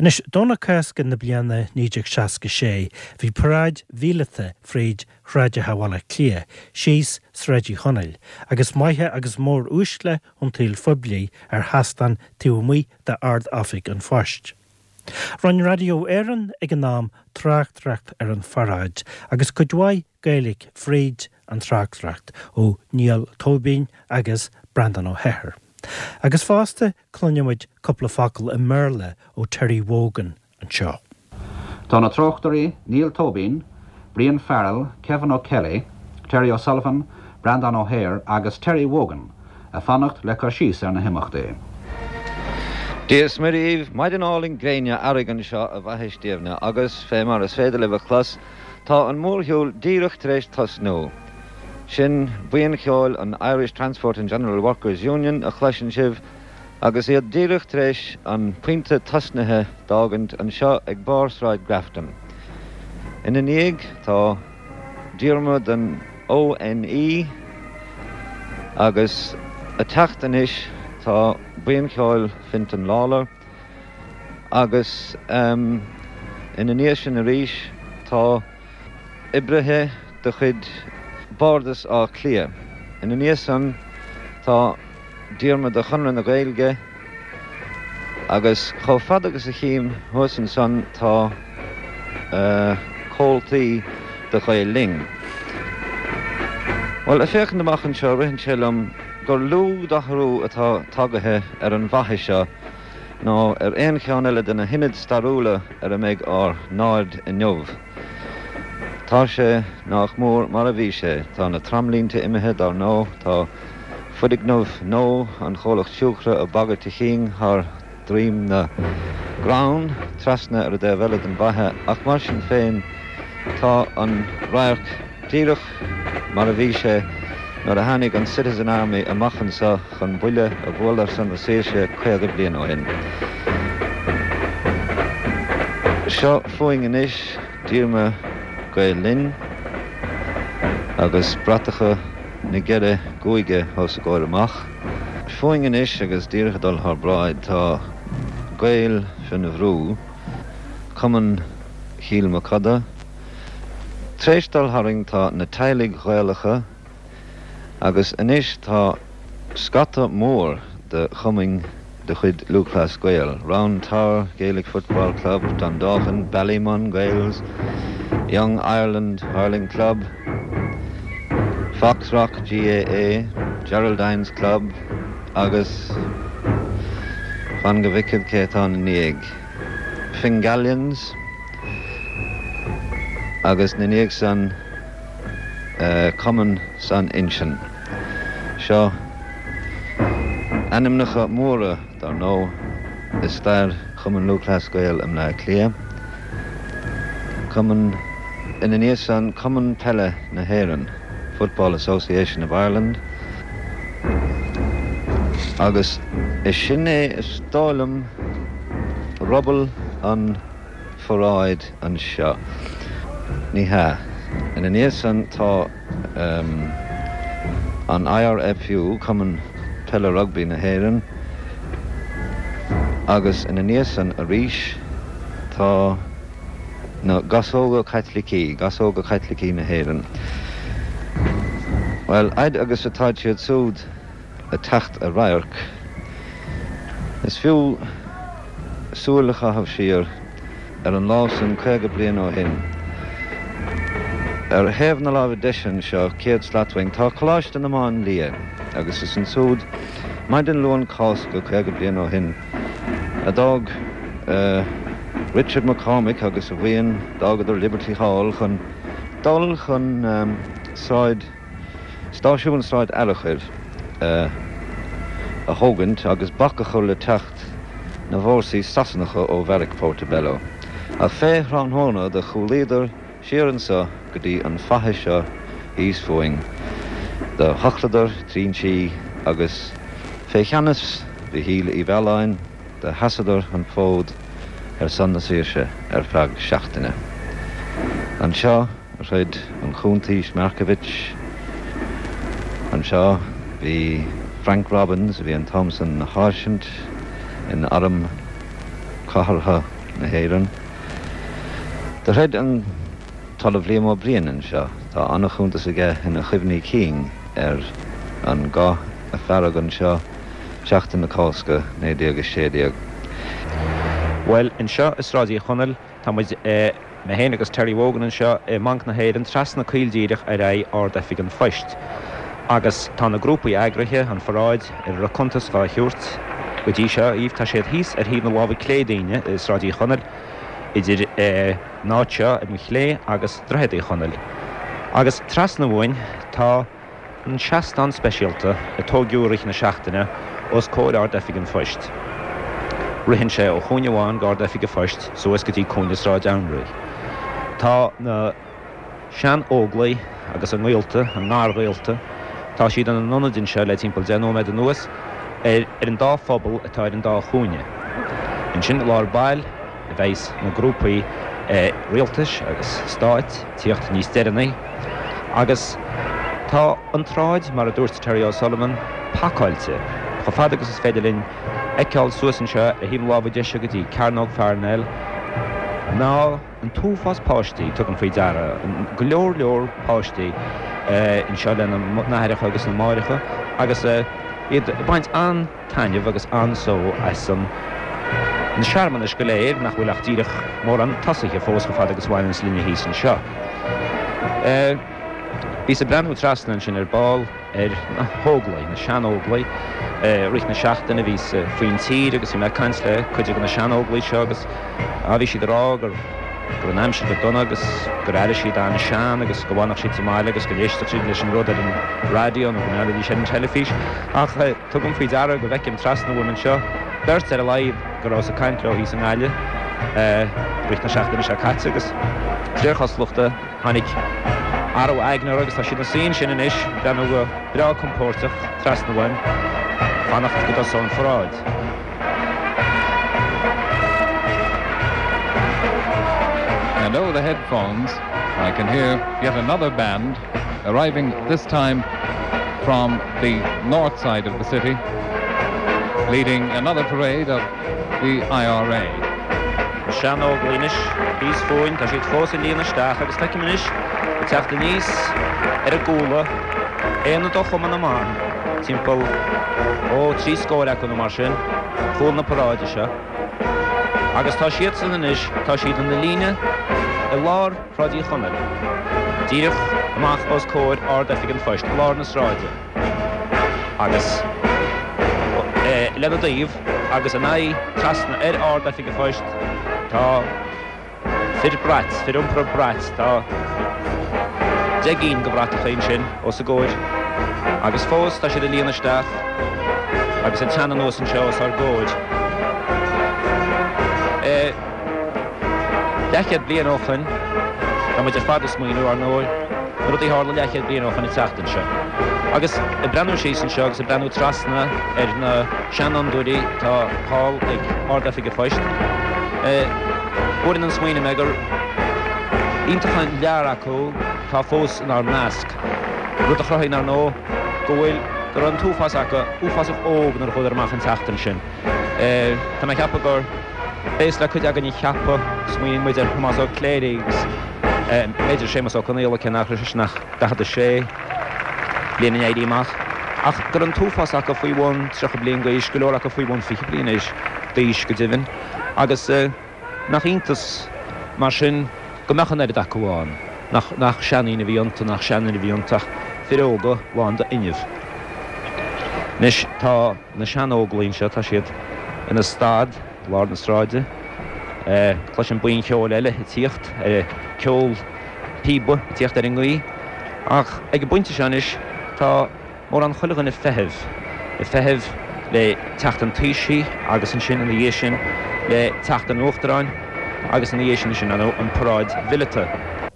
Anois, Domhnach Cásca na bliana 1966, bhí paráid mhíleata fríd shráideacha Bhaile Átha Cliath, síos Sráid Uí Chonaill, agus maithe agus mór-uaisle an tsaoil phoiblí ar sheastán taobh amuigh d'Ard-Oifig an Phoist. Rinne Raidió Éireann ag an am tráchtaireacht ar an pharáid agus cuid mhaith Gaeilge fríd an tráchtaireacht ó Niall Tóibín agus Breandán Ó hEithir. Agus fosta cluinfidh muid cúpla focal i mBéarla ó Terry Wogan anseo. Tá na tráchtairí Niall Tóibín, Brian Farrell, Kevin O'Kelly, Terry O'Sullivan, Breandán Ó hEithir agus Terry Wogan ag fanacht le cur síos ar na himeachtaí. Dia is Muire dhaoibh, maidin álainn gréine earraigh anseo i bhFaiche Stiabhna agus, fé mar is féidir libh a chlos, tá an mórshiúl díreach tar éis tosnú. Sin buíon cheoil an Irish Transport and General Workers Union a chloiseann sibh agus iad díreach tar éis an pointe tosnaithe d'fhágaint anseo ag barr Sráid Grafton. Ina ndiaidh tá díorma den ONE agus a teacht anois tá buíon cheoil Fintan Lawlor agus ina ndiaidh sin arís tá oibrithe de chuid Bhardas Átha Cliath. Ina ndiaidh san tá díorma de Chonradh na Gaeilge agus chomh fada agus a chím thuas ansan tá comhaltaí de Ghael Linn. Bhuel, ag féachaint amach anseo ritheann sé liom gur lú d'athrú atá tagaithe ar an bhfaiche seo ná ar aon cheann eile de na hionaid stairiúla ar a mbeidh ár n-aird inniu. Tá sé nách mór mar a bhí sé. Tá na tramlínte imithe, dar ndóigh, tá foirgneamh nua an chomhlacht siúcra ag bagairt a chinn thar droim na gcrann trasna ar an dtaobh eile den bhfaiche ach mar sin féin tá an radharc díreach mar a bhí sé nuair a tháinig an Citizen Army amach anseo chun buille a bhualadh ar son na saoirse 50 bliain ó shin. Seo fúinn anois díorma Gael Linn agus bratacha na gceithre gcúige os a gcomhair amach. Fúinn anois agus díreach ag dul thár bráid tá Gaeil Fionn Bhrú, Cumann Chill Mochuda. Tréis dul tharainn tá na teaghlaigh Ghaelacha agus anois tá scata mór de chumainn de chuid Lúthchleas Gael, Round Tower Gaelic Football Club, Dundalkin, Ballymun Gaels, Young Ireland Hurling Club, Foxrock GAA, Geraldines Club agus fan go bhfeicfead cé atá ina ndiaidh, Fingallians agus ina ndiaidh san Cumann San Uinseann. Seo ainmneacha móra, dar ndóigh, i stair Chumann Lúthchleas Gael i mBleá Cliath. Cumann, ina ndiaidh san, Cumann Peile na hÉireann, Football Association of Ireland, agus is sin é, is dóigh liom, ruball an pharáid anseo. Ní hea. Ina ndiaidh san tá an IRFU, Cumann Peile Rugbaí na hÉireann, agus ina ndiaidh san arís tá na Gasóga Caitlicí, Gasóga Caitlicí na hÉireann. Bhuel, fhaid agus atáid siad súd ag teacht i radharc, is fiú súil a chaitheamh siar ar an lá san 50 bliain ó shin. Ar thaobh na láimhe deise anseo, 100 slat uainn, tá Coláiste na Máinlia agus is ansúd, maidin Luan Cásca 50 bliain ó shin, a d'fhág Richard McCormick agus a bhuíon, d'fhágadar Liberty Hall chun dul chun Sráid Stáisiún Sráid Fhearchair a thógaint agus bac a chur le teacht na bhfórsaí Sasanacha ó Bheairic Portobello. Ach fé thráthnóna do chúlaíodar siar anso go dtí an faiche seo thíos fúinn. Do thochladar trinsí agus fé cheannas Mhichíl Uí Mhealláin do sheasadar an fód ar son na saoirse ar feadh seachtaine. Anseo a throid an Cuntaois Markievicz. Anseo bhí Frank Robbins, a bhí an t-am san ina sháirsint in Arm Cathartha. na hÉireann. Do throid an tOllamh Liam Ó Briain anseo. Tá an-chuntas aige ina chuimhní cinn ar an gcath a fearadh anseo Seachtain na Cásca 1916. Bhuel, anseo i Sráid Uí Chonaill, tá muid, mé féin agus Terry Wogan anseo i mBanc na hÉireann, trasna coill díreach ar aghaidh Ard-Oifig an Phoist. Agus tá na grúpaí eagraithe, an pharáid, ar a raibh cuntas dhá thabhairt go dtí seo dhaoibh, tá siad thíos ar thaobh na láimhe clé dínne i Sráid Uí Chonaill, idir an áit seo ar mo chlé agus Droichead Uí Chonaill. Agus trasna uainn tá an seastán speisialta a tóigeadh i rith na seachtaine os comhair Ard-Oifig an Phoist. Ritheann sé ó chúinne amháin d'Ard-Oifig an Phoist suas go dtí cúinne Sráid Anraí. Tá na sean-Óglaigh agus a ngaolta, a ngarghaolta, tá siad ina n-ionaid anseo le timpeall 10 nóiméad anuas, ar an dá phuball atá ar an dá chúinne. Ansin i lár baill a bheidhs na grúpaí rialtais agus stáit ag tíocht níos deireanaí. Agus tá an tsráid, mar a dúirt Terry O'Sullivan, pacáilte, chomh fada agus is féidir linn fheiceáil suas anseo ar thaobh na láimhe deise go dtí Cearnóg Pharnell, ná an t-uafás páistí, tugaim faoi deara, go leor leor páistí anseo lena n-aithreacha agus na máithreacha agus iad ag baint an. taitneamh agus an-só as an na searmanais go léir, nach bhfuil ach díreach mórán tosaithe fós chomh fada agus a bhaineanns linne thíos anseo. Bhíos ag breathnú trasna ansin ar ball ar na hÓglaigh, na sean-Óglaigh. I rith na seachtaine bhíos faoin tír agus bhí mé ag caint le cuid de na sean-Óglaigh seo agus bhí siad ag rá go raibh an aimsir go dona agus gur airigh siad an-sean agus go bhfanfadh siad sa mbaile agus go n-éistfeadh siad leis an rud ar an raidió nó go mbreathnóidís ar an teilifís. Ach. Tugaim faoi deara go bhfeicim trasna uaim anseo beirt ar a laghad go rabhas ag caint leo thíos i nGaillimh i rith na seachtaine seo caite agus de réir cosúlachta tháinig athrú aigne orthu agus tá siad ina suí ansin anois ag breathnú go breá compóirteach trasna uaim, fanacht go dtosóidh an pharáid. And over the headphones I can hear yet another band arriving this time from the north side of the city, leading another parade of the IRA. Na sean-Óglaigh anois thíos fúinn, tá siad fós ag líonadh isteach agus feicim anois ag teacht aníos ar a gcúla aonad ó Chumann na mBan, timpeall, ó, trí scór acu nó mar sin, chúl na paráide seo. Agus tá siadsan anois, tá siad ina líne i lár Shráid Uí Chonaill, díreach amach os comhair Ard-Oifig an Phoist, i lár na sráide, agus lena dtaobh agus a n-aghaidh trasna ar Ard-Oifig an Phoist tá fir brait, fir iompartha brait, tá 10 gcinn de bhratacha ansin os a gcomhair agus fós tá siad ag líonadh isteach agus ag teannadh anuas anseo os ár gcomhair. Leathchéad bliain ó shoin, tá muid ar fad ag smaoineamh, ar ndóigh, na rudaí a tharla leathchéad bliain ó shoin an tseachtain seo. Agus ag breathnú síos anseo agus ag breathnú trasna ar na seanfhondúirí atá thall ag Ard-Oifig an Phoist, buaileann an smaoineamh mé gur iontach an lear acu atá fós inár measc. Rud a chruthaíonn, ar ndóigh, go bhfuil, go raibh an t-uafás acu uafásach óg nuair a chuadar amach an tseachtain sin. Tá mé ag ceapadh gur. B'éasca le cuid againn a cheapadh, smaoiníonn muid ar Thomás Ó Cléirigh agus b'fhéidir Séamus Ó Conaola, cé nach raibh seisean ach 46 bliain an Éirí Amach, ach go raibh an t-uafás acu faoi bhun 30 bliain d'aois, go leor acu faoi bhun 20 bliain d'aois go deimhin, agus nach iontas mar sin go mbeadh an oiread acu ann, nach seandaoine a bhí iontu, nach seanfhir a bhí iontu ach fir óga lán d'fhuinneamh. Anois tá. Na sean-Óglaigh anseo, tá siad ina stad i lár na sráide. Cloisim buíon cheoil eile ag tíocht, ceol píoba ag tíocht ar an ngaoth. Ach ag an bpointe seo anois, tá mórán chuile dhuine ag feitheamh, ag feitheamh le teacht an Taoisigh agus ansin ina dhiaidh sin le teacht an Uachtaráin agus ina dhiaidh sin ansin an paráid mhileata.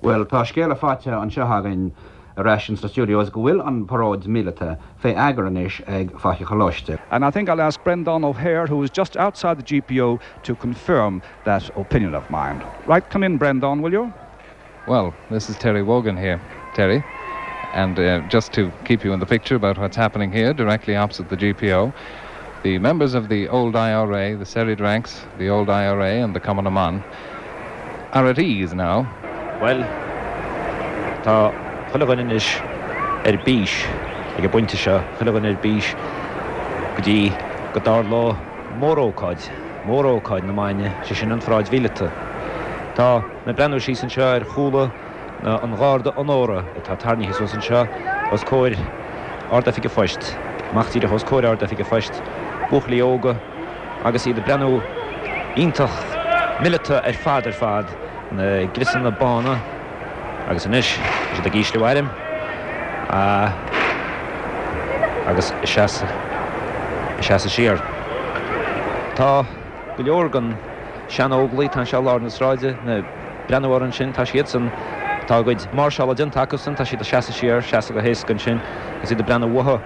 Bhuel, tá scéala faighte anseo againn ar ais ins na studios go bhfuil an paróid míleata fé eagar anois ag Faiche Choláiste. And I think I'll ask Breandán O'Hare, who is just outside the GPO, to confirm that opinion of mine. Right, come in, Breandán, will you? Well, this is Terry Wogan here, Terry. And uh, just to keep you in the picture about what's happening here, directly opposite the GPO. The members of the old IRA, the serried ranks, the old IRA and the Cumann na mBan are at ease now. Bhuel, tá chuile dhuine anois ar bís ag an bpointe seo, chuile dhuine ar bís go dtí go dtarlóidh mórócáid, mórócáid na maidne, sé sin an pharáid mhíleata. Tá mé ag breathnú síos anseo ar chúla an gharda onóra atá tarraingthe suas anseo os comhair Ard-Oifig an Phoist, amach díreach os comhair Ard-Oifig an Phoist, buachaillí óga agus iad ag breathnú iontach mileata ar fad ar fad, na griosanna bána agus anois tá siad ag ísliú airm agus ag seasamh siar. Tá go leor den sean-Óglaigh atá anseo i lár na sráide, ag breathnú orthu ansin, tá siadsan, tá a gcuid máirseála déanta acusan, tá siad ag seasamh siar, seasamh go héasca ansin agus iad ag breathnú uathu.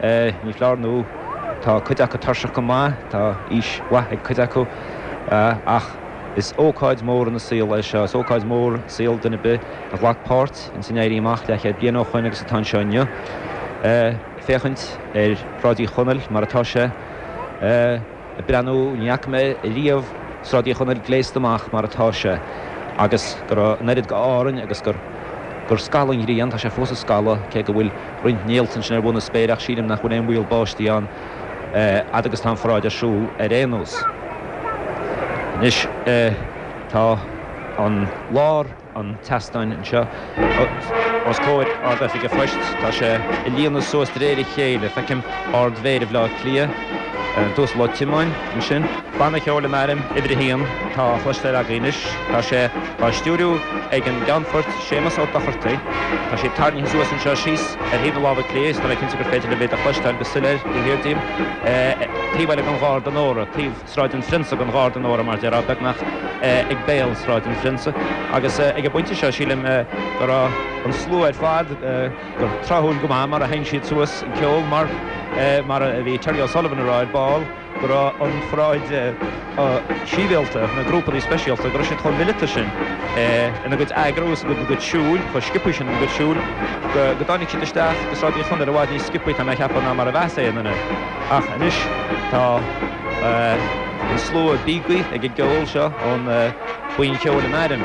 Ní foláir nó tá cuid acu tuirseach go maith, tá aois mhaith ag cuid acu ach is ócáid mhór ina saol é seo, is ócáid mhór i saol duine ar bith a ghlac páirt ins an Éirí Amach leathchéad bliain ó shoin agus atá anseo inniu féachaint ar Shráid Uí Chonaill mar atá sé. Ag breathnú, ní fhaca mé riamh Sráid Uí Chonaill gléasta amach mar atá sé agus go raibh an oiread de Árainn agus gur gur scalladh an ghrian, tá sé fós ag scalladh cé go bhfuil roinnt néalta ansin ar bhun na spéire ach sílim nach bhfuil aon bhaol báistí ann fhad agus tá an pharáid ar siúl ar aon nós. Anois tá an lár. an tseastáin anseo os comhair Ard-Oifig an Phoist. Tá sé ag líonadh suas de réir a chéile. Feicim Ard-Mhéara Bhaile Átha Cliath, an tUasal Ó Tiomáin, ansin. Banna Ceoil an Airm, uimhir a haon, atá á chloisteáil againn anois. Tá sé á stiúiriú ag an gCeannfort Séamus Ó Dochartaigh. Tá siad tarraingthe suas anseo síos ar thaobh na láimhe clé is tá mé cinnte gur féidir libh iad a chloisteáil go soiléir taobh thiar díom. Taobh eile den Gharda Onóra, taobh. Sráid an Phrionsa den Gharda Onóra, mar déarfá, beagnach ag béal Sráid an Phrionsa. Agus ag an bpointe seo, sílim go raibh an slua ar fad, gur tráthúil go maith mar a sheinn siad suas an ceol, mar, mar a bhí Terry O'Sullivan a rá ar ball, go raibh an pharáid sibhialta, na grúpanna speisialta, go raibh siad chomh mileata sin ina gcuid eagrú is ina gcuid siúil, chomh sciobtha sin ina gcuid siúil, go dtáinig siad isteach go Sráid Uí Chonaill i bhfad níos sciobtha, tá mé a cheapadh, ná mar a bheas aon duine. Ach anois tá an slua bíogtha ag an gceol seo ón Buíon Cheoil an Airm.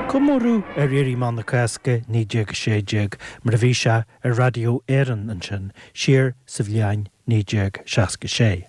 Comóradh ar Éirí Amach na Cásca 1916 mar a bhí sé ar Raidió Éireann ansin siar sa bhliain 1966.